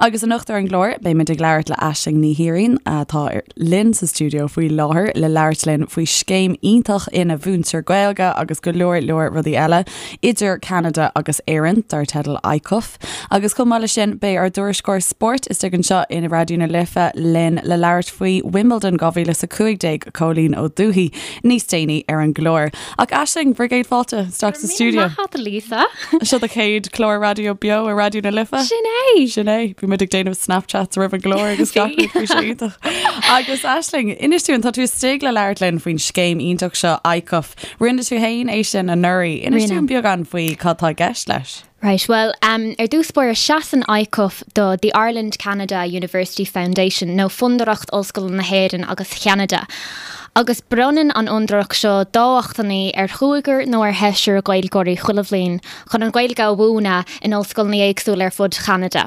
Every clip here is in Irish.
Agus anocht ar an gclár, beimid ag labhairt le Aisling Ní Thiaráin, atá linn sa stiúideo faoi láthair le labhairt linn faoi scéim iontach ina mhúintear Gaeilge agus go leor leor rudaí eile idir Ceanada agus Éirinn, dar teideal ICUF. Agus chomh maith leis sin, beidh ár dtuairisceoir spóirt istigh anseo in Raidió na Life linn le labhairt faoi Wimbledon 2015, Cóilín Ó Dubhthaigh, níos déanaí ar an gclár. Ach Aisling, bhur gcéad fáilte isteach sa stiúideo. Maith agat, Lisa. Seo do chéad chlár raidió beo ar Raidió na Life. Sin é! Sin é. Bhí muid ag déanamh Snapchats roimh an gclár agus gach rud bhí sé iontach. Agus Aisling, inis dúinn, tá tú istigh le labhairt linn faoin scéim iontach seo, ICUF. Rinne tú féin é sin anuraidh. Inis Rinne. dúinn beagán faoi cad tá i gceist leis. Right, bhuel, ar dtús báire seasann ICUF do The Ireland Canada University Foundation, nó Fondúireacht Ollscoileanna na hÉireann agus Cheanada, agus bronnann an fhondúireacht seo dámhachtainí ar chúigear nó ar sheisear Gaeilgeoirí chuile bhliain chun an Ghaeilge a mhúineadh in ollscoileanna éagsúla ar fud Cheanada.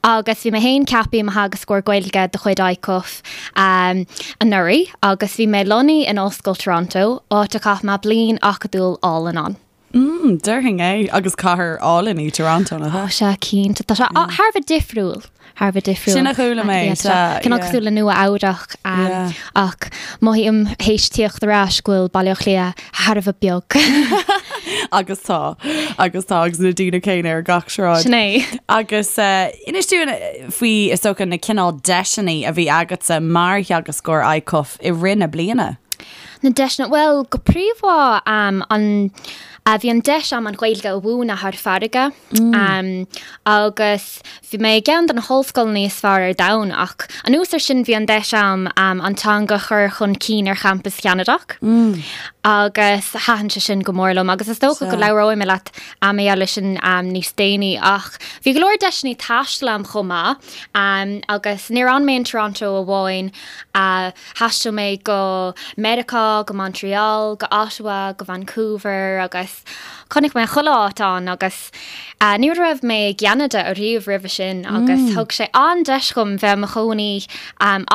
Agus bhí mé féin ceaptha i mo theagascóir Gaeilge de chuid ICUF anuraidh agus bhí mé lonnaithe in Ollscoil Toronto, áit a chaith mé bliain acadúil álainn ann. Mm, déarfainn é. Agus cathair álainn í Toronto, nach ea? Tá sé, cinnte. Tá sé thar a bheith difriúil. Thar a bheith difriúil. Sin a chuala mé, sea. Cineál cosúil le Nua Eabhrac. Ach mothaím théis tíocht ar ais go bhfuil Baile Átha Cliath thar a bheith beag. Agus tá. Agus tá, agus na daoine céanna ar gach sráid. Sin é. Agus inis dúinn faoi, is dócha, na cineál deiseanna a bhí agatsa mar theagascóir ICUF i rith na bliana. Na deiseanna, bhuel, go príomha, an, bhí an deis a'm an Ghaeilge a mhúineadh thar farraige agus bhí mé i gceann de na hollscoileanna is fearr ar domhan ach anuas ar sin bhí an deis a'm an teanga a chur chun cinn ar champas Cheanadach agus thaitin sé sin go mór liom agus is dócha go labhróidh mé leat mar gheall air sin níos déanaí ach bhí go leor deiseanna taistil a'm chomh maith agus níor fhan mé in Toronto amháin. Thaistil mé go Meiriceá, go Montreal, go Ottawa, go Vancouver agus chonaic mé chuile áit ann agus ní raibh mé i gCeanada ariamh roimhe sin agus thug sé an-deis dhom bheith i mo chónaí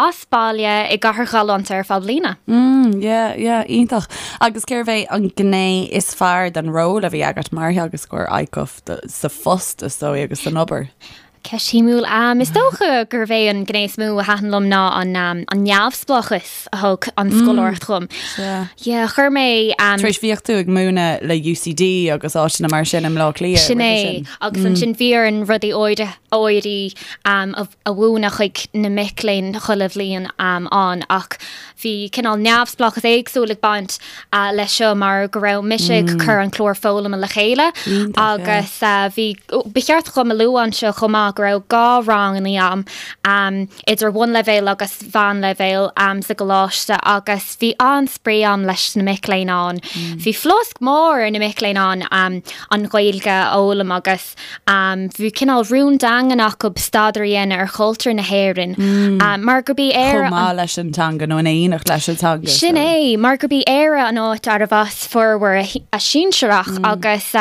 as baile i gcathair ghalánta ar feadh bliana. Mm, yeah, yeah, iontach. Agus cérbh é an gné is fearr den ról a bhí agat mar theagascóir ICUF sa phost is dóigh agus san obair? Ceist shuimiúil. Is dócha gurbh é an gné is mó a thaitin liom ná an an neamhspleáchas a thug an scoláireacht dhom. Sea. Yeah, chuir mé. Tar éis bhíodh tú ag múineadh le UCD agus áiteanna mar sin i mBleá Cliath Sin é. roimhe sin. Agus ansin bhí orainn rudaí áirithe áirithe a a mhúineadh chuig na mic léinn chuile bhliain ann ach bhí cineál neamhspleáchas éagsúil ag baint leis seo mar go raibh mise ag cur an clár foghlama le chéile agus bhí, ba cheart dhom a lua anseo chomh maith go raibh 2 ranganna a'm, idir bhunleibhéal agus mheánleibhéal sa gcoláiste agus bhí an-spraoi a'm leis na mic léinn ann. Bhí flosc mór ar na mic léinn ann an Ghaeilge a fhoghlaim agus. Bhí cineál rún daingean acu staidéar a dhéanamh ar chultúr na hÉireann mar gurb í Éire. Chomh maith leis an teanga nó in éineacht leis an teanga. Sin é, mar gurb í Éire an áit arbh as formhór a sinsearach agus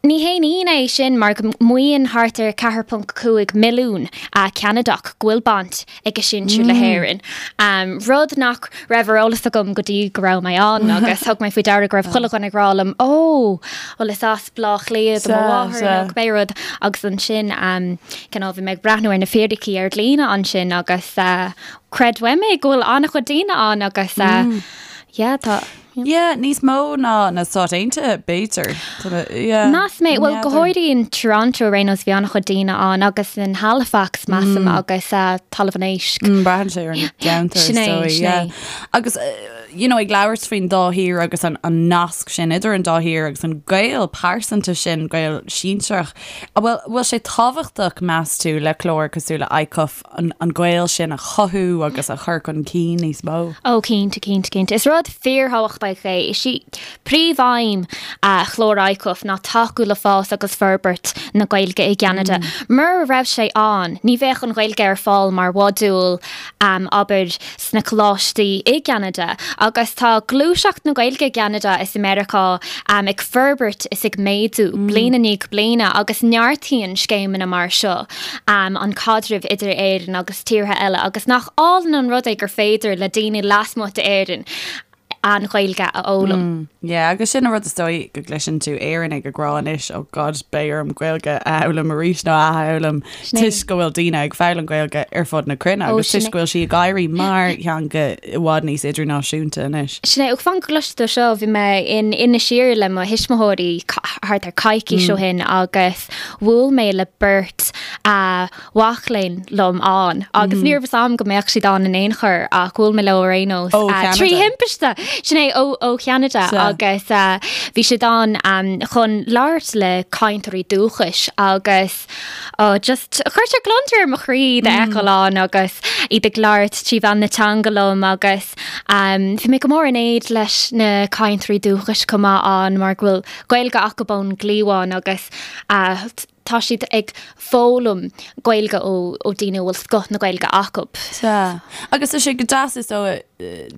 ní haon ionadh é sin mar go maíonn thart ar 4.5 milliún Ceanadach go bhfuil baint ag a sinsir le hÉirinn, rud nach raibh ar eolas agam go dtí go raibh mé ann agus thug mé faoi deara go raibh chuile dhuine ag rá liom 'Ó, bhuel is as Bleá Cliath do mo mháthair nó cibé rud' agus ansin cineál bhí mé ag breathnú ar na fíricí ar líne ansin agus creid uaim é go bhfuil an-chuid daoine ann agus yeah tá. Yeah, níos mó ná na Stáit Aontaithe, b'fhéidir. Yeah. Meas mé, bhuel, go háirithe in Toronto ar aon nós, bhí an-chuid daoine ann agus in Halifax, measaim, agus Talamh an Éisc. Braitheann sé ar an gceantar, is Sin é, dóigh, sin yeah. é. Agus, you know, ag labhairt faoin dá thír agus an, an nasc sin idir an dá thír agus an gaol pearsanta sin, gaol sinsearach, an bhfuil, bhfuil sé tábhachtach, meas tú, le clár cosúil le ICUF an, an gaol sin a chothú agus a chur chun cinn níos mó? Ó, cinnte, cinnte, cinnte. Is rud fíorthábhachtach é. Is í príomhaidhm chlár ICUF ná tacú le fás agus forbairt na Gaeilge i gCeanada. Mura raibh sé ann, ní bheadh an Ghaeilge ar fáil mar mhodúl, abair, sna coláistí i gCeanada. Agus tá gluaiseacht na Gaeilge i gCeanada is i Meiriceá ag forbairt is ag méadú bliain i ndiaidh bliana agus neartaíonn scéimeanna mar seo an caidreamh idir Éirinn agus tíortha eile agus nach álainn an rud é gur féidir le daoine lasmuigh d'Éirinn. An Ghaeilge a fhoghlaim. Yeah, agus sin an rud is dóigh go gcloiseann tú Éireannaigh ag rá anois, oh God, beidh orm Gaeilge a fhoghlaim arís nó a athfhoghlaim toisc go bhfuil daoine ag foghlaim Gaeilge ar fud na cruinne agus toisc go bhfuil sí ag éirí mar theanga i bhfad níos idirnáisiúnta anois. Sin é, ó fan go gcloisfidh tú seo, bhí mé in Inis Oírr le mo thuismitheoirí thart ar coicís ó shin agus bhuail mé le beirt mhac léinn liom ann agus ní raibh fhios a'm go mbeadh siad ann in aon chor ach bhuail mé leo ar aon nós trí thimpiste! Sin é, ó Cheanada agus bhí siad ann chun labhairt le cainteoirí dúchais agus just chuir sé gliondar ar mo chroí iad a fheiceáil ann agus iad ag labhairt trí mheán na teanga liom agus bhí mé go mór in éad leis na cainteoirí dúchais chomh maith ann mar go bhfuil Gaeilge acu ón gcliabhán agus tá siad ag foghlaim Gaeilge ó daoine a bhfuil scoth na Gaeilge acu. Sea. Agus tá sé go deas is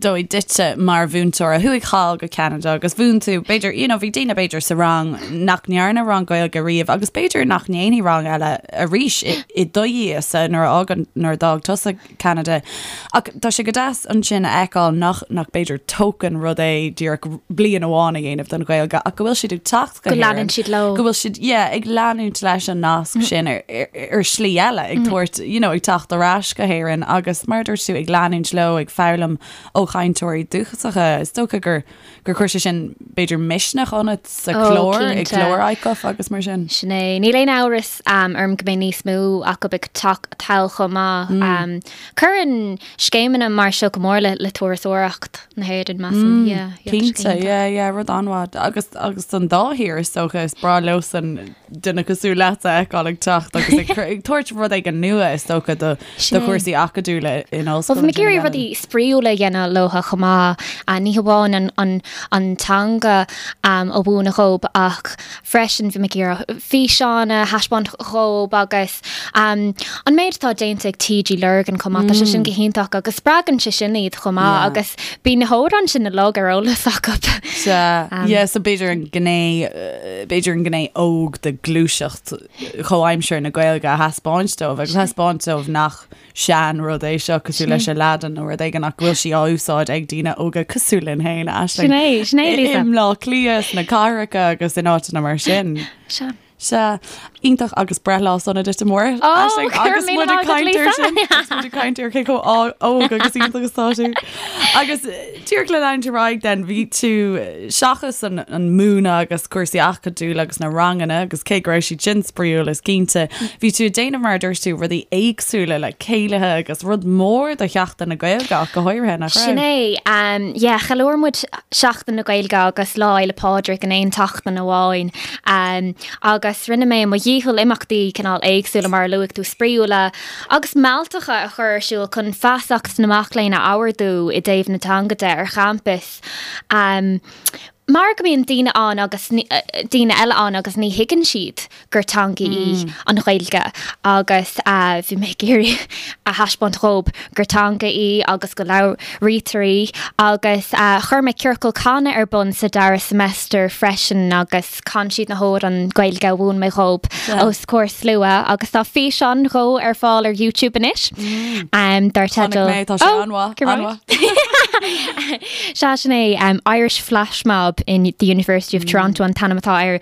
dóigh duitse mar mhúinteoir a chuaigh thall go Ceanada agus mhúin tú, b'fhéidir, you know, bhí daoine b'fhéidir sa rang nach ndearna rang Gaeilge riamh agus b'fhéidir nach ndéanfaidh rang eile arís i do dhiaidhse nuair a fhágann, nuair a d'fhág tusa Ceanada. Ach tá sé go deas ansin a fheiceáil nach, nach b'fhéidir token rud é díreach bliain amháin a dhéanamh den Ghaeilge ach go bhfuil siad ag teacht go Go leanann siad leo. Go bhfuil siad, yeah, ag leanúint leis an nasc sin ar, ar, ar shlí eile, ag tabhairt, you know, ag teacht ar ais go hÉirinn agus mar a dúirt tú ag leanúint leo, ag foghlaim ó chainteoirí dúchasacha. Is dócha gur, gur chuir sé sin b'fhéidir misneach ionat sa Ó, chlár, i cinnte. gclár ICUF agus mar sin. Sin é. Níl aon amhras orm go mbeidh níos mó acu ag teacht thall chomh maith. Cuireann scéimeanna mar seo go mór le le turasóireacht na hÉireann, measaim. Yeah, yeah, tá sé Cinnte, iontach. yeah, yeah, rud an-mhaith. Agus, agus don dá thír is dócha, is breá leosan duine cosúil leat a fheiceáil ag teacht agus ag ag tabhairt rud éigin nua is dócha do Sin do é. chúrsaí acadúla in Bhuel, ollscoil bhí mé ag ansin iarraidh in rudaí spraíúla a dhéanamh leo chomh maith. Ní hamháin an, an, an teanga a mhúineadh dhób ach freisin bhí mé ag iarraidh físeáin a thaispeáint dhób agus an méid atá déanta ag TG Lurgan chomh maith, tá sé sin go hiontach agus spreagann sé sin iad chomh maith agus bíonn na hamhráin sin uilig ar eolas acu. Sea, yeah, so b'fhéidir an gné, b'fhéidir an gné óg de gluaiseacht chomhaimseartha na Gaeilge a thaispeáint dóibh agus thaispeáint dóibh nach sean rud é seo cosúil leis Aladdin nó rud éigin ach go bhfuil sí á úsáid ag daoine óga cosúil linn féin, Aisling. Sin é, sin é, Lisa. I mBleá Cliath, sna cathracha agus in áiteanna mar sin. Sea. Sea, iontach agus breithlá sona duit amárach, Ó, Aisling, go raibh agus míle muid ag maith agat, caint air Lisa. sin, agus muid ag caint ar cé chomh óg agus iontach is atá tú. Agus díreach le leanúint ar aghaidh then, bhí tú seachas an, an múineadh agus cúrsaí acadúla agus na ranganna agus cé go raibh siad sin spraíúil is cinnte, bhí tú ag déanamh mar a dúirt tú rudaí éagsúla le céilithe agus rud mór do Sheachtain na Gaeilge ach go háirithe, nach raibh? Sin é, yeah, cheiliúir muid Seachtain na Gaeilge agus Lá Fhéile Pádraig in aon tseachtain amháin agus rinne mé mo dhícheall imeachtaí cineál éagsúla mar a luaigh tú, spraíúla agus mealltacha a chur ar siúl chun feasacht na mac léinn a ardú i dtaobh na teanga de ar champas. Mar go mbíonn daoine ann agus daoine eile ann agus ní thuigeann siad gur teanga í an Ghaeilge agus bhí mé ag iarraidh a thaispeáint dhób gur teanga í agus go labhraítear í agus chuir mé ciorcal canadh ar bun sa dara semester freisin agus chan siad na hamhráin Gaeilge a mhúin mé dhób os comhair slua agus tá físeán dhó ar fáil ar YouTube anois dar teideal Chonaic mé, tá sé an-mhaith, an-mhaith. Sea, sin é Irish Flash Mob in the University of Toronto an t-ainm atá air.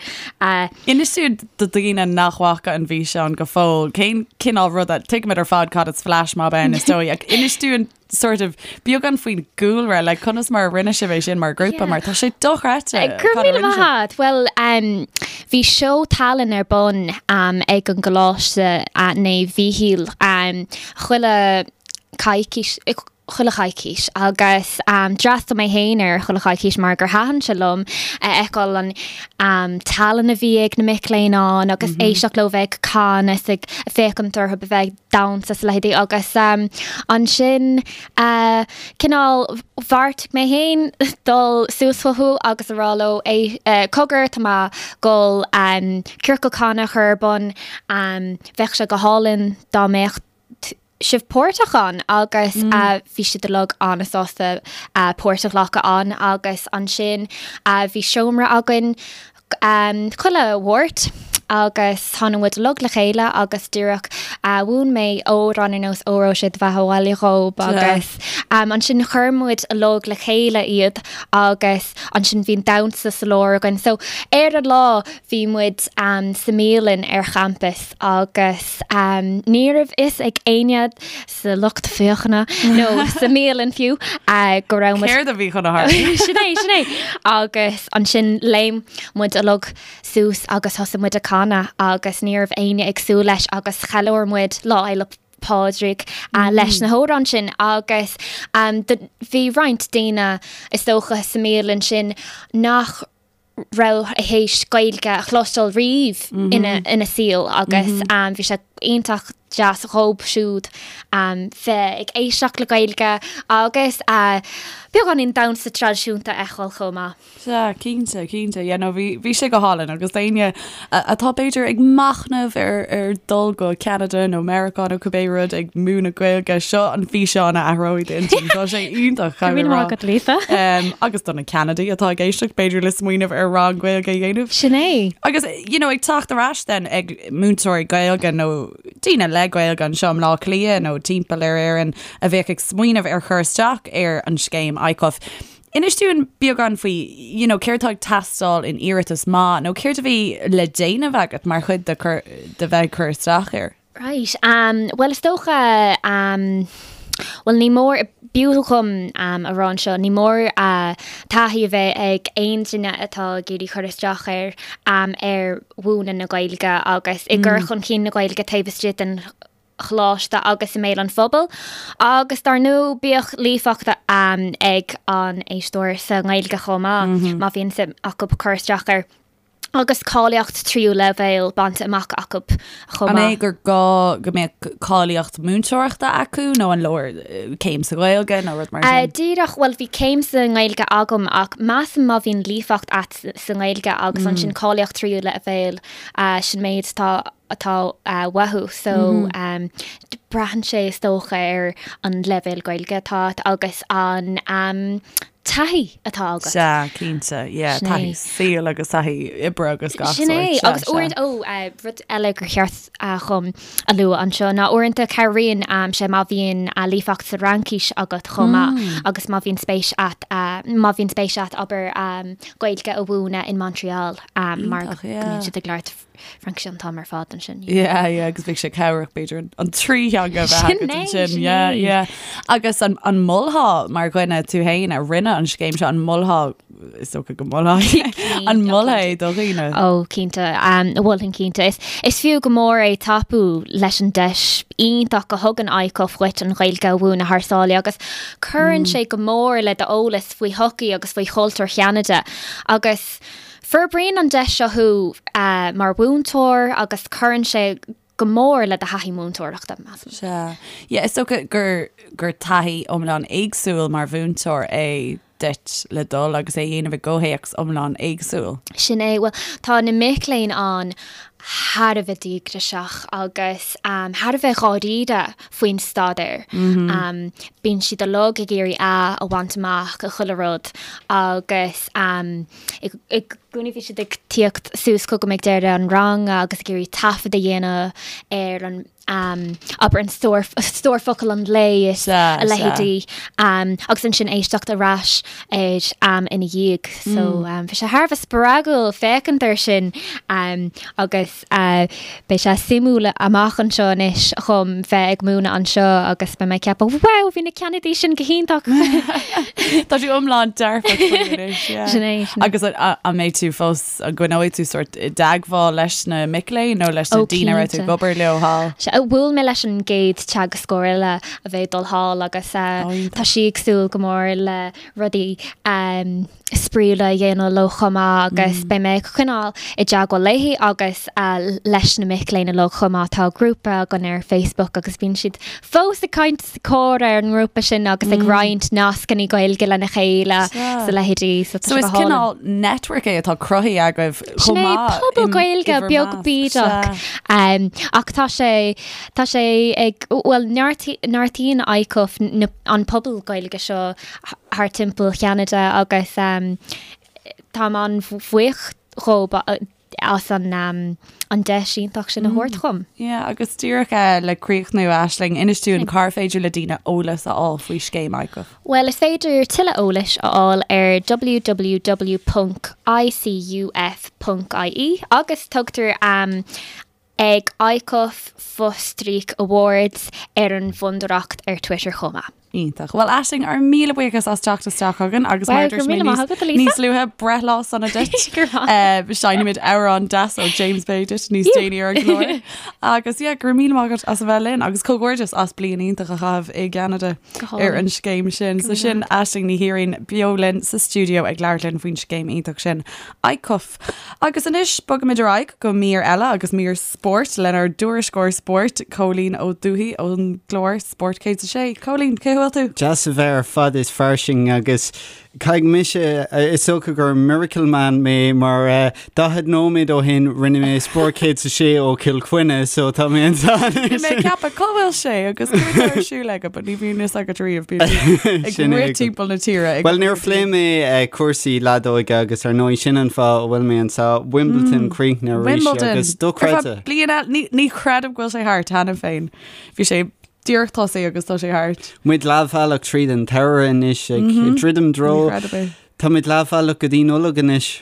Inis dúinn do dhaoine nach bhfaca an bhfíseán go fóill, cén cineál ruda, tuigimid ar fad cad is flash mob ann is dóigh, ach inis dúinn sort of beagán faoin gcúlra, like conas mar a rinne sibh é sin mar ghrúpa, mar tá sé dochreidte. Go raibh míle maith agat. Bhuel, bhí seó tallann ar bun ag an gColáiste Naomh Mhíchíl chuile coicís, chuile choicís agus d'fhreastail mé féin ar chuile choicís mar gur thaitin sé liom a fheiceáil an tallann a bhí ag na mic léinn ann agus éisteacht leo bheith ag canadh is ag féachaint orthu a bheith ag damhsa is a leithéidí agus ansin cineál bheartaigh mé féin dul suas chucu agus a rá leo cogar tá mé ag dul ciorcal canadh a chur ar bun bheadh sé go hálainn dá mbeadh sibh páirteach ann agus bhí siad uilig an-sásta páirt a ghlacadh ann agus ansin bhí seomra againn chuile Mháirt. Agus tháinig muid uilig le chéile agus díreach mhúin mé amhrán ar nós Óró Sé do Bheatha Abhaile dhób agus ansin chuir muid uilig le chéile iad agus ansin bhí an damhsa sa lár againn. So ar an lá bhí muid sa mbialann ar champas agus ní raibh fhios ag éinne sa lucht féachana nó sa mbialann fiú go raibh muid. Céard a bhí chun a tharlú? Sin é, sin é. Agus ansin léim muid uilig suas agus thosaigh muid ag canadh agus ní raibh éinne ag súil leis agus cheiliúir muid Lá Fhéile Pádraig leis na hamhráin sin agus bhí roinnt daoine is dócha sa mbialann sin nach raibh théis Gaeilge a chloisteáil riamh ina saol agus bhí sé iontach deas dhób siúd bheith ag éisteacht le Gaeilge agus beagáinín damhsa traidisiúnta a fheiceáil chomh maith. Sea, cinnte, cinnte. Yeah, no, bhí, bhí sé go hálainn agus d'éinne atá b'fhéidir ag machnamh ar, ar dul go Ceanada nó Meiriceá nó cibé rud ag múineadh Gaeilge, seo an físeán a athróidh d'intinn. Tá sé iontach, Go raibh míle maith agat, Lisa. Um, agus do na Ceanadaigh atá ag éisteacht, b'fhéidir le smaoineamh ar rang Gaeilge a dhéanamh. Sin é. Agus, you know, ag teacht ar ais then ag múinteoirí Gaeilge nó daoine le Gaeilge anseo i mBleá Cliath nó timpeall ar Éirinn a bheadh ag smaoineamh ar chur isteach ar an scéim ICUF. Inis dúinn beagán faoi, you know, céard atá ag teastáil in iarratas maith nó céard a bhí le déanamh agat mar chuid de cur, de bheith ag cur isteach air? Right, um, bhuel is dócha, um, bhuel ní mór, b'fhiú dhom um, a rá anseo, ní mór uh, taithí a bheith ag aon duine atá ag iarraidh cur isteach air um, ar mhúineadh na Gaeilge agus i gcur chun cinn na Gaeilge taobh istigh den choláiste agus i mbéal an phobail, agus dar ndóigh bíodh líofacht ag an éisteoir sa nGaeilge chomh maith, má bhíonn suim acu cur isteach air, agus cáilíocht tríú leibhéal bainte amach acu chomh maith. An é gur gá go mbeadh cáilíocht múinteoireachta acu nó an leor céim sa Ghaeilge nó rud mar sin? Díreach, bhuel bhí céim sa nGaeilge agam ach measaim má bhíonn líofacht a't sa nGaeilge agus ansin cáilíocht tríú leibhéal, sin méid atá atá uathu so braitheann sé is dócha ar an leibhéal Gaeilge atá a't agus an taithí atá agat. Sea, cinnte, yeah, Sin é. taithí saoil agus taithí oibre agus gach Sin é, sórt, sea, agus sea. uaireanta, ó, rud eile gur cheart dhom a lua anseo ná uaireanta cabhraíonn sé má bhíonn líofacht sa Fhraincis agat chomh maith agus má bhíonn spéis a't, má bhíonn spéis a't abair Gaeilge a mhúineadh in Montreal mar go Iontach, yeah. mbíonn siad ag labhairt Fraincis an t-am ar fad ansin. Yeah, yeah, agus bheadh sé cabhrach b'fhéidir an, an trí theanga a bheith agat ansin. Yeah, yeah. Agus an, an molfá mar dhuine tú féin a rinne an scéim seo, an molfá, is dócha go molfá, an molfá é do dhaoine? Ó, cinnte, um, mholfainn cinnte. Is, is fiú go mór é tapú leis an deis iontach a thugann ICUF dhuit an Ghaeilge a mhúineadh thar sáile agus cuireann sé go mór le d'eolas faoi shochaí agus faoi chultúr Cheanada agus Forbraíonn an deis seo thú mar mhúinteoir agus cuireann sé go mór le do thaithí múinteoireachta, measaim. Sea. Yeah, is dócha gur, gur taithí iomlán éagsúil mar mhúinteoir é duit le dul agus é a dhéanamh i gcomhthéacs iomlán éagsúil. Sin é. Bhuel, tá na mic léinn ann thar a bheith díograiseach agus thar a bheith dháiríre faoin staidéar. Bíonn siad uilig ag iarraidh A a bhaint amach i chuile rud agus I gcónaí bhí siad ag tíocht suas chugam ag deireadh an ranga agus ag iarraidh taifead a dhéanamh ar an abair an stór stór focal an lae is a leithéidí agus ansin éisteacht ar ais air ina dhiaidh. So bhí sé thar a bheith spreagúil féachaint air sin agus Beidh sé suimiúil amach anseo anois dhom bheith ag múineadh anseo agus beidh mé ag ceapadh, wow, bhí na Ceanadaigh sin go hiontach! Tá tú iomlán dearfach faoi anois, yeah. Sin é, sin é. Agus an mbeidh tú fós, an gcoinneoidh tú sórt i dteagmháil leis na mic léinn nó leis na daoine a raibh tú ag obair leo thall? Sea, bhuail mé leis an gcéad teagascóir eile a bheidh ag dul thall agus tá sí ag súil go mór le rudaí spraíúla a dhéanamh leo chomh maith agus beidh mé ag coinneáil i dteagmháil léi agus leis na mic léinn uilig chomh maith. Tá grúpa againn ar Facebook agus bíonn siad fós ag caint is ag comhrá ar an ngrúpa sin agus ag roinnt nascanna Gaeilge lena chéile is a leithéidí. So tá sé go hálainn. So is cineál network é atá cruthaithe agaibh chomh maith. Sin é, pobal Gaeilge beag bídeach. Ach tá sé, tá sé ag, bhuel neartaíonn ICUF an pobal Gaeilge seo thar timpeall Cheanada agus táim an-bhuíoch dhób. as an an deis iontach sin a thabhairt dhom. Yeah, agus díreach le críochnú, Aisling, inis dúinn cár féidir le daoine eolas a fháil faoi scéim ICUF. Bhuel, is féidir tuilleadh eolais a fháil ar www.icuf.ie agus tugtar ag ICUF fostríoc awards ar an bhfondúireacht ar Twitter chomh maith. Iontach. Bhuel, Aisling, ár míle buíochas as teacht isteach chugainn agus mar a dúirt mé níos luaithe, breithlá sona duit. Seinnfimid amhrán deas ó James Bay duit níos déanaí ar an gclár. Agus yeah, go raibh míle maith agat as a bheith linn agus comhghairdeas as bliain iontach a chaitheamh i gCeanada ar an scéim sin. So sin Aisling Ní Thiaráin beo linn sa stiúideo ag labhairt linn faoin scéim iontach sin. ICUF. Agus anois bogaimid ar aghaidh go mír eile agus mír spóirt lenár dtuairisceoir spóirt, Cóilín Ó Dubhthaigh ón gclár Spórt 106. Cóilín, cén chaoi a bhfuil tú? Deas a bheith ar fad is fairsing agus caithfidh mise, is dócha gur miracle man mé mar 40 nóiméad ó shin rinne mé Spórt 106 ó Chill Chainnigh so tá mé anseo anois. Bhí mé ag ceapadh cá bhfuil sé agus céard atá ar siúl aige but ní bhíonn fhios agat riamh bíonn tú ag rith timpeall na tíre ag Bhuel níor phléigh mé cúrsaí leadóige agus ar ndóigh sin an fáth a bhfuil mé anseo, Wimbledon críochnaithe arís Wimbledon agus dochreidte. Bliain eile, ní, ní chreidim go bhfuil sé thart cheana féin. Bhí sé díreach tosaithe agus tá sé thart. Muid leathbhealach tríd an tsamhradh anois ag druidim i dtreo. Ní chreidim é. Tá muid leathbhealach go dtí Nollaig anois.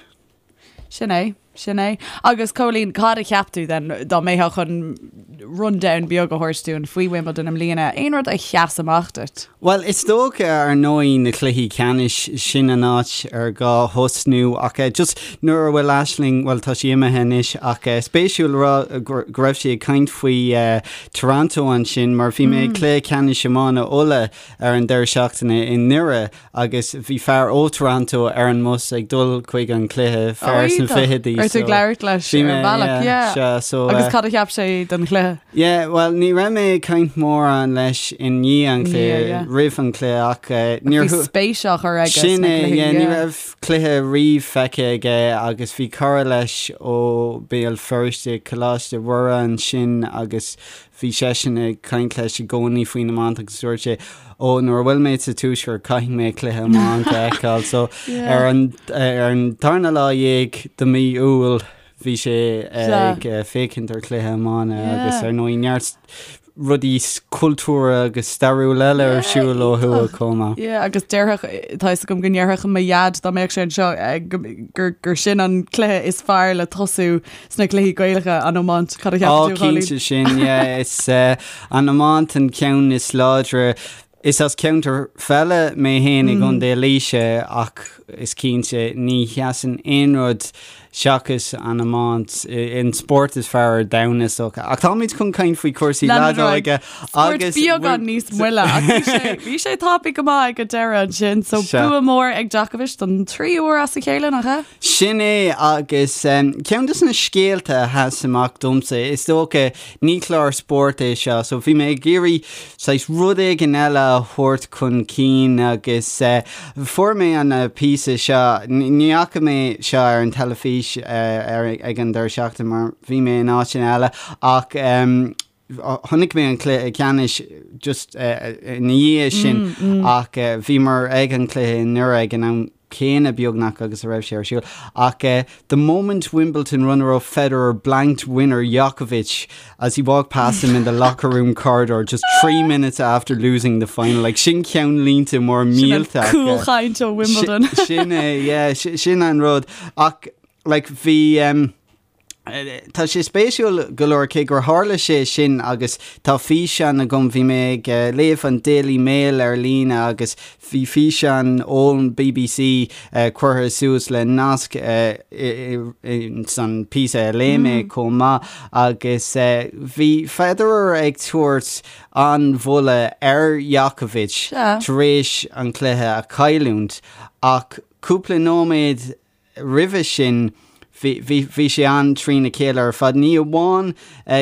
Sin é, sin é. Agus Cóilín, cad a cheap tú then, dá mbeifeá chun rundown beag a thabhairt dúinn faoi Wimbledon i mbliana, aon rud a sheas amach duit? Bhuel, is dócha, ar ndóigh, na cluichí ceannais, sin an áit ar gá thosnú ach just nuair a bhfuil Aisling, bhuel tá sí imithe anois ach spéisiúil a rá go raibh sí ag caint faoi Toronto ansin mar bhí mé ag cluiche ceannais iomána Uladh ar an deireadh seachtaine i nDoire Agus bhí fear ó Toronto ar an mbus ag dul chuig an cluiche, fear sna fichidí. Raibh tú ag labhairt leis ar an bhealach, yeah. Sea, so. Agus cad a cheap sé den chluiche? Yeah, bhuel, ní raibh mé ag caint mórán leis i ndiaidh an chluiche, roimh an chluiche ach níor. Bhí spéis á chur aige sna cluichí, yeah. Sin é, yeah, ní raibh cluiche riamh feicthe aige agus bhí cara leis ó Béal Feirste, Coláiste Mhuire ansin agus Bhí seisean ag caint leis i gcónaí faoin iomáint agus dúirt sé, Ó, nuair a bhfuil mé sa tuaisceart caithfidh mé cluiche iomáint a fheiceáil. So ar an ar an tarna lá dhéag de mí Iúil bhí sé ag féachaint ar chluiche iomána agus ar ndóigh neart rudaí cultúrtha agus stairiúla eile ar siúl ó thuaidh chomh maith. Yeah, agus déarfadh, tá fhios agam go ndéarfadh mo dhaid dá mbeadh sé anseo gur gur sin an cluiche is fearr le tosú Sna cluichí Gaelacha, an iomáint, cad a cheapann tú, a Chóilín? Ó, cinnte sin, yeah. Is an iomáint an ceann is láidre. Is as ceantar peile mé féin i gContae Laoise ach is cinnte ní sheasann aon rud seachas an iomáint, an spórt is fearr ar domhan is dócha. Ach táimid chun caint faoi chúrsaí leadóige agus. Spórt beagán níos moille ach bhí sé bhí sé tapaidh go maith ag an deireadh ansin, so bua mór ag Djokovic don tríú huair as a chéile, nach ea? Sin é, agus ceann de na scéalta a sheas amach domsa, is dócha, ní clár spóirt é seo, so bhí mé ag iarraidh saghas rud éigin eile a thabhairt chun cinn agus fuair mé an píosa seo, ní fhaca mé seo ar an teilifís ag an deireadh seachtaine mar bhí mé in áiteanna eile ach Chonaic mé an cluiche ceannais just ina dhiaidh sin ach bhíomar ag an cluiche i nDoire ag an am céanna beagnach agus a raibh sé ar siúl. Ach the moment Wimbledon runner-up Federer blanked winner Djokovic as he walked past him in the locker room corridor just 3 minutes after losing the final. Like sin ceannlínte mór millteach. Sin an cúlchaint ó Wimbledon. Sin é, yeah, sin an rud. Ach like bhí. Tá sé spéisiúil go leor cé gur tharla sé sin agus tá físeán agam, bhí mé ag léamh an Daily Mail ar líne agus bhí físeán ón bbc curtha suas le nasc san píosa a léigh mé chomh maith agus bhí Federer ag tabhairt an-mholadh ar Djokovic tar éis an cluiche a chailliúint ach cúpla nóiméad Roimhe sin, bhí sé an-trína chéile ar fad. Ní amháin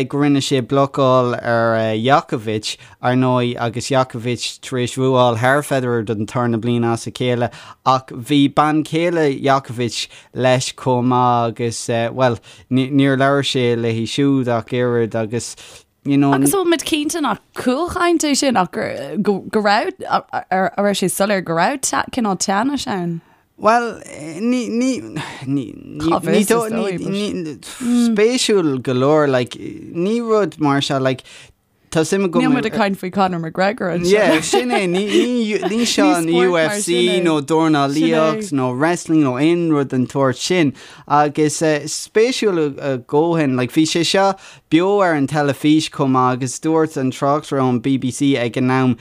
go rinne sé blocáil ar Djokovic, ar ndóigh, agus Djokovic tar éis bhuáil thar Federer don tarna bliain as a chéile, ach bhí bean chéile Djokovic leis chomh maith agus, bhuel, níor labhair sé léi siúd ach oiread agus, you know. Agus an bhfuil muid cinnte nach cúlchaint é sin ach go raibh, a raibh sé soiléir go raibh cineál teannais ann? Bhuel, ní, ní, ní, ní, ní, ní, ní, spéisiúil go leor, like, ní rud mar seo, like, tá suim agam. Níl muid ag caint faoi Conor McGregor anseo. Yeah, sin é, ní, ní, ní seo an UFC nó dornálaíocht nó wrestling nó aon rud den tsórt sin. Agus spéisiúil a dhóthain, like, bhí sé seo beo ar an teilifís chomh maith agus dúirt an tráchtaire ón BBC ag an am,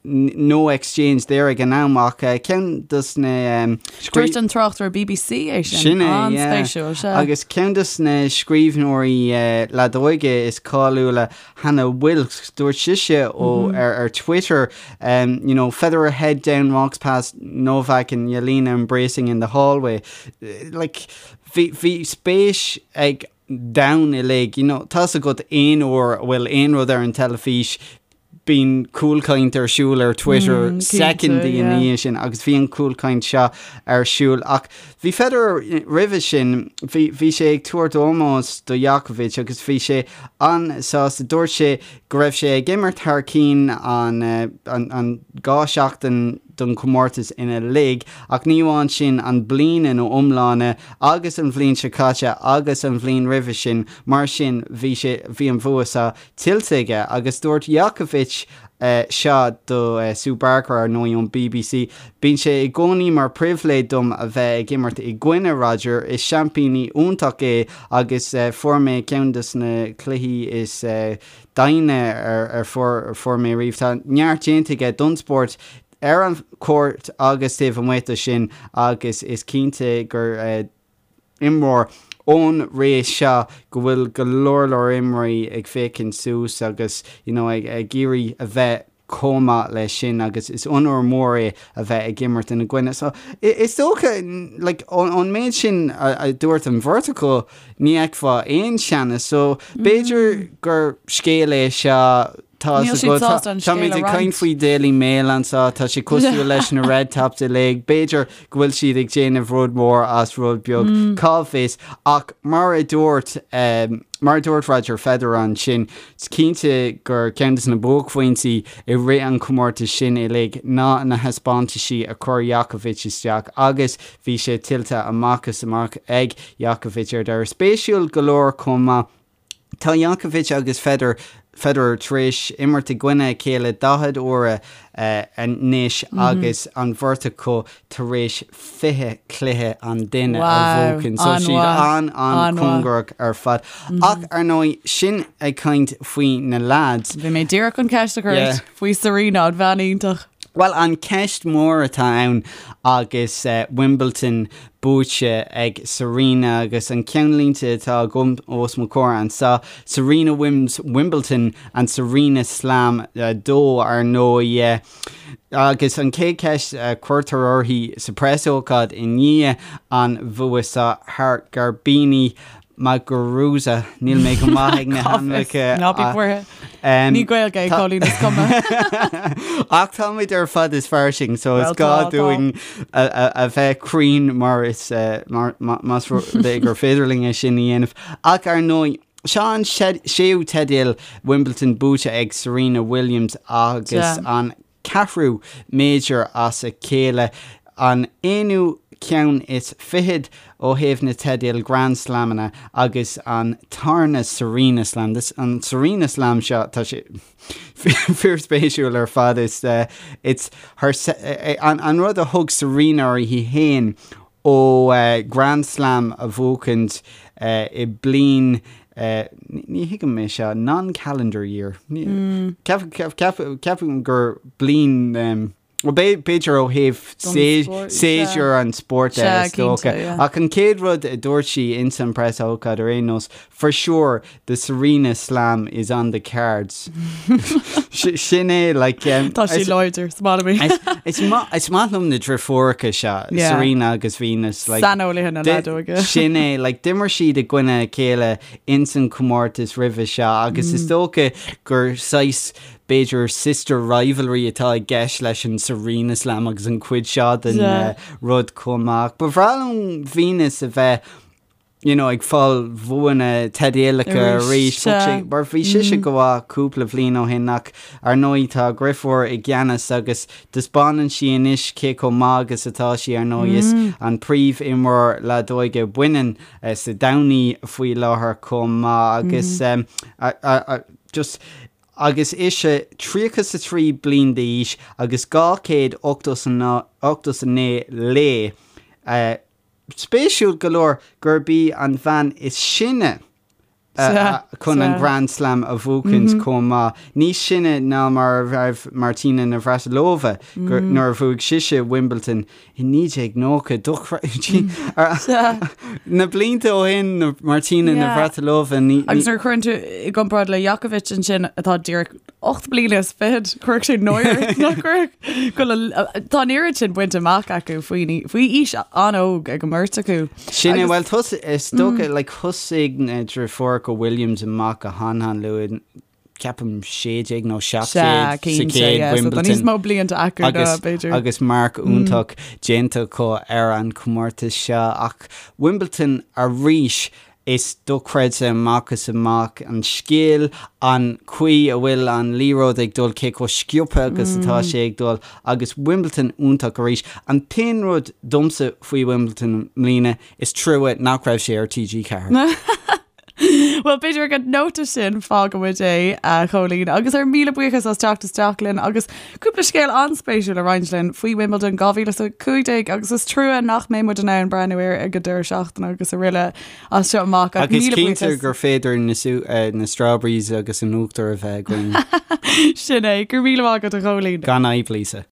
No exchange there ag an am ach ceann dos na. Dúirt an tráchtaire BBC é sin. Sin é, yeah. An-spéisiúil, sea. Agus ceann dos na scríbhneoirí leadóige is cáiliúla, Hannah Wilkes, dúirt sise ó ar ar Twitter, you know, Federer head down walks past Novak and Jelena embracing in the hallway. Like, bhí bhí spéis ag domhan uilig, you know, tá's agat aon uair a bhfuil aon rud ar an teilifís, Bíonn cúlchaint ar siúl ar Twitter soicind ina dhiaidh sin agus bhí an cúlchaint seo ar siúl ach bhí Federer roimhe sin, bhí, bhí sé ag tabhairt ómós do Djokovic agus bhí sé an-sásta. Dúirt sé go raibh sé ag imirt thar cinn an, an, an 2 seachtain don chomórtas uilig ach ní amháin sin, an bliain ina iomláine agus an bhliain seo caite agus an bhliain roimhe sin. Mar sin bhí sé, bhí an bhua seo tuillte aige agus dúirt Djokovic seo do Sue Barker, ar ndóigh, ón bbc, Bíonn sé i gcónaí mar pribhléid dom a bheith ag imirt i gcoinne Roger, is seaimpíní iontach é agus fuair mé ceann de na cluichí is doimhne ar fuair mé riamh. Tá neart déanta aige don spórt ar an chúirt agus taobh amuigh de sin agus is cinnte gur imreoir ón ré seo go bhfuil go leor leor imreoirí ag féachaint suas agus you know ag ag iarraidh a bheith chomh maith leis sin agus is onóir mór é a bheith ag imirt ina gcoinne. So is dócha like ón méid sin a dúirt an bheirt acu ní fheicfeá aon teannas so b'fhéidir gur scéal é seo Tá Níl siad sásta an scéal a roinnt. Táimid ag caint faoi Daily Mail anseo, tá sé cosúil leis na Red Tops uilig, b'fhéidir go bhfuil siad ag déanamh rud mór as rud beag, cá bhfios, ach mar a dúirt, mar a dúirt Roger Federer ansin, is cinnte gur ceann de na buaicphointí i rith an chomórtais sin uilig ná na thaispeántaisí a chuir Djokovic isteach agus bhí sé tuillte amach is amach ag Djokovic ar deireadh. Spéisiúil go leor chomh maith. Tá Djokovic agus Federer Federer tar éis imirt i gcoinne a chéile 40 uaire anois agus an bheirt acu tar éis 20 cluiche an duine a bhuachan. So siad an-an-chóngarach ar fad. Ach ar ndóigh, sin ag caint faoi na lads. Bhí mé díreach chun ceist a chur ort faoi Serena, an bhean iontach. Bhuel, an ceist mór atá ann agus Wimbledon buaite ag Serena agus an ceannlínte atá agam os mo chomhair anseo, Serena wins Wimbledon and Serena Slam 2 ar ndóigh. Agus an chéad cheist a cuirtear uirthi sa preasócáid i ndiaidh an bhua seo thar Garbiñe Muguruza, níl mé go maith ag na hainmneacha. Ná bí buartha. Ní Gaeilge é Cóilín is cuma. Ach táimid ar fad is fairsing, so is gá dúinn a bheith cruinn mar is más rud é gur féidir linn é sin a dhéanamh. Ach ar ndóigh, seo an séú teideal Wimbledon buaite ag Serena Williams agus an ceathrú major as a chéile, an aonú ceann is fichead ó thaobh na teidil Grand Slamanna agus an tarna Serena Slam. This, an Serena Slam seo, tá sé fíorspéisiúil ar fad. Is, it's her, an, an rud a thug Serena uirthi féin ó Grand Slam a bhuachaint i bliain, ní thuigim é seo, non-calendar year. Ceapaim gur bliain, bhuel b'fhéidir ó thaobh séasúr an spóirt de is dócha. Ach an chéad rud a dúirt sí ins an preasócáid ar aon nós, For sure, the Serena Slam is on the cards. Sin é, like... Tá sí láidir, is maith liom í. Is maith liom na driofúracha seo, Serena agus Venus. Like, Saineolaithe na leadóige. Sin é, like, d'imir siad i gcoinne a chéile ins an comórtas roimhe seo agus is dócha gur saghas b'fhéidir sister rivalry atá i gceist leis an Serena Slam agus an cuid seo den rud chomh maith. Ba bhreá liom Venus a bheith. you know, ag fáil bhuanna teidealacha arís, mar bhí sise go maith cúpla bhliain ó shin ach ar ndóigh tá a deirfiúr i gceannas agus taispeánann sí anois cé chomh maith agus atá sí ar ndóigh is an príomh-imreoir leadóige baineann sa domhan í faoi láthair chomh maith agus just agus ise 33 bliain d'aois agus 289 lae Spéisiúil go leor gurb í an bhean is sine chun an Grand Slam a bhuachaint chomh maith, níos sine ná mar a raibh Martina Navratilova nuair a bhuaigh sise Wimbledon i 1990. Dochreidte. Na blianta ó shin, Martina Navratilova. Agus nuair a chuireann tú i gcomparáid le Djokovic ansin atá díreach 8 bliana is fichead, chuirfeadh sé náire ort nach gcuirfeadh? Go bhfuil a- Tá an oiread sin bainte amach acu faoi faoi aois an-óg ag an mbeirt acu. Sin é, bhuel tos is dócha like thosaigh na deirfiúracha Williams amach go han-han luath, ceapaim 16 nó 17 Sea, sa cinnte, chéad yeah, so tá níos Wimbledon. mó blianta acu ná agus b'fhéidir. agus marc iontach déanta acu ar an chomórtas seo ach Wimbledon arís Is dochreidte amach is amach an scil, an chaoi a bhfuil an liathróid ag dul, cé chomh sciobtha agus atá sé ag dul agus Wimbledon iontach arís. An t-aon rud domsa faoi Wimbledon i mbliana, is trua nach raibh sé ar TG4. Bhuel, b'fhéidir ag an nóta sin fágfaidh muid é, a Chóilín, agus ár míle buíochas as teacht isteach linn agus cúpla scéal an-spéisiúil a roinnt linn faoi Wimbledon 2015 agus is trua nach mbeidh muid in ann breathnú air ag an deireadh seachtaine agus araile as seo amach ach Agus míle cinnte buíochas. gur féidir na, eh, na strawberries agus an uachtar a bheith againn. Sin é, go raibh míle maith agat a Chóilín. Gan fhadhb, Lisa.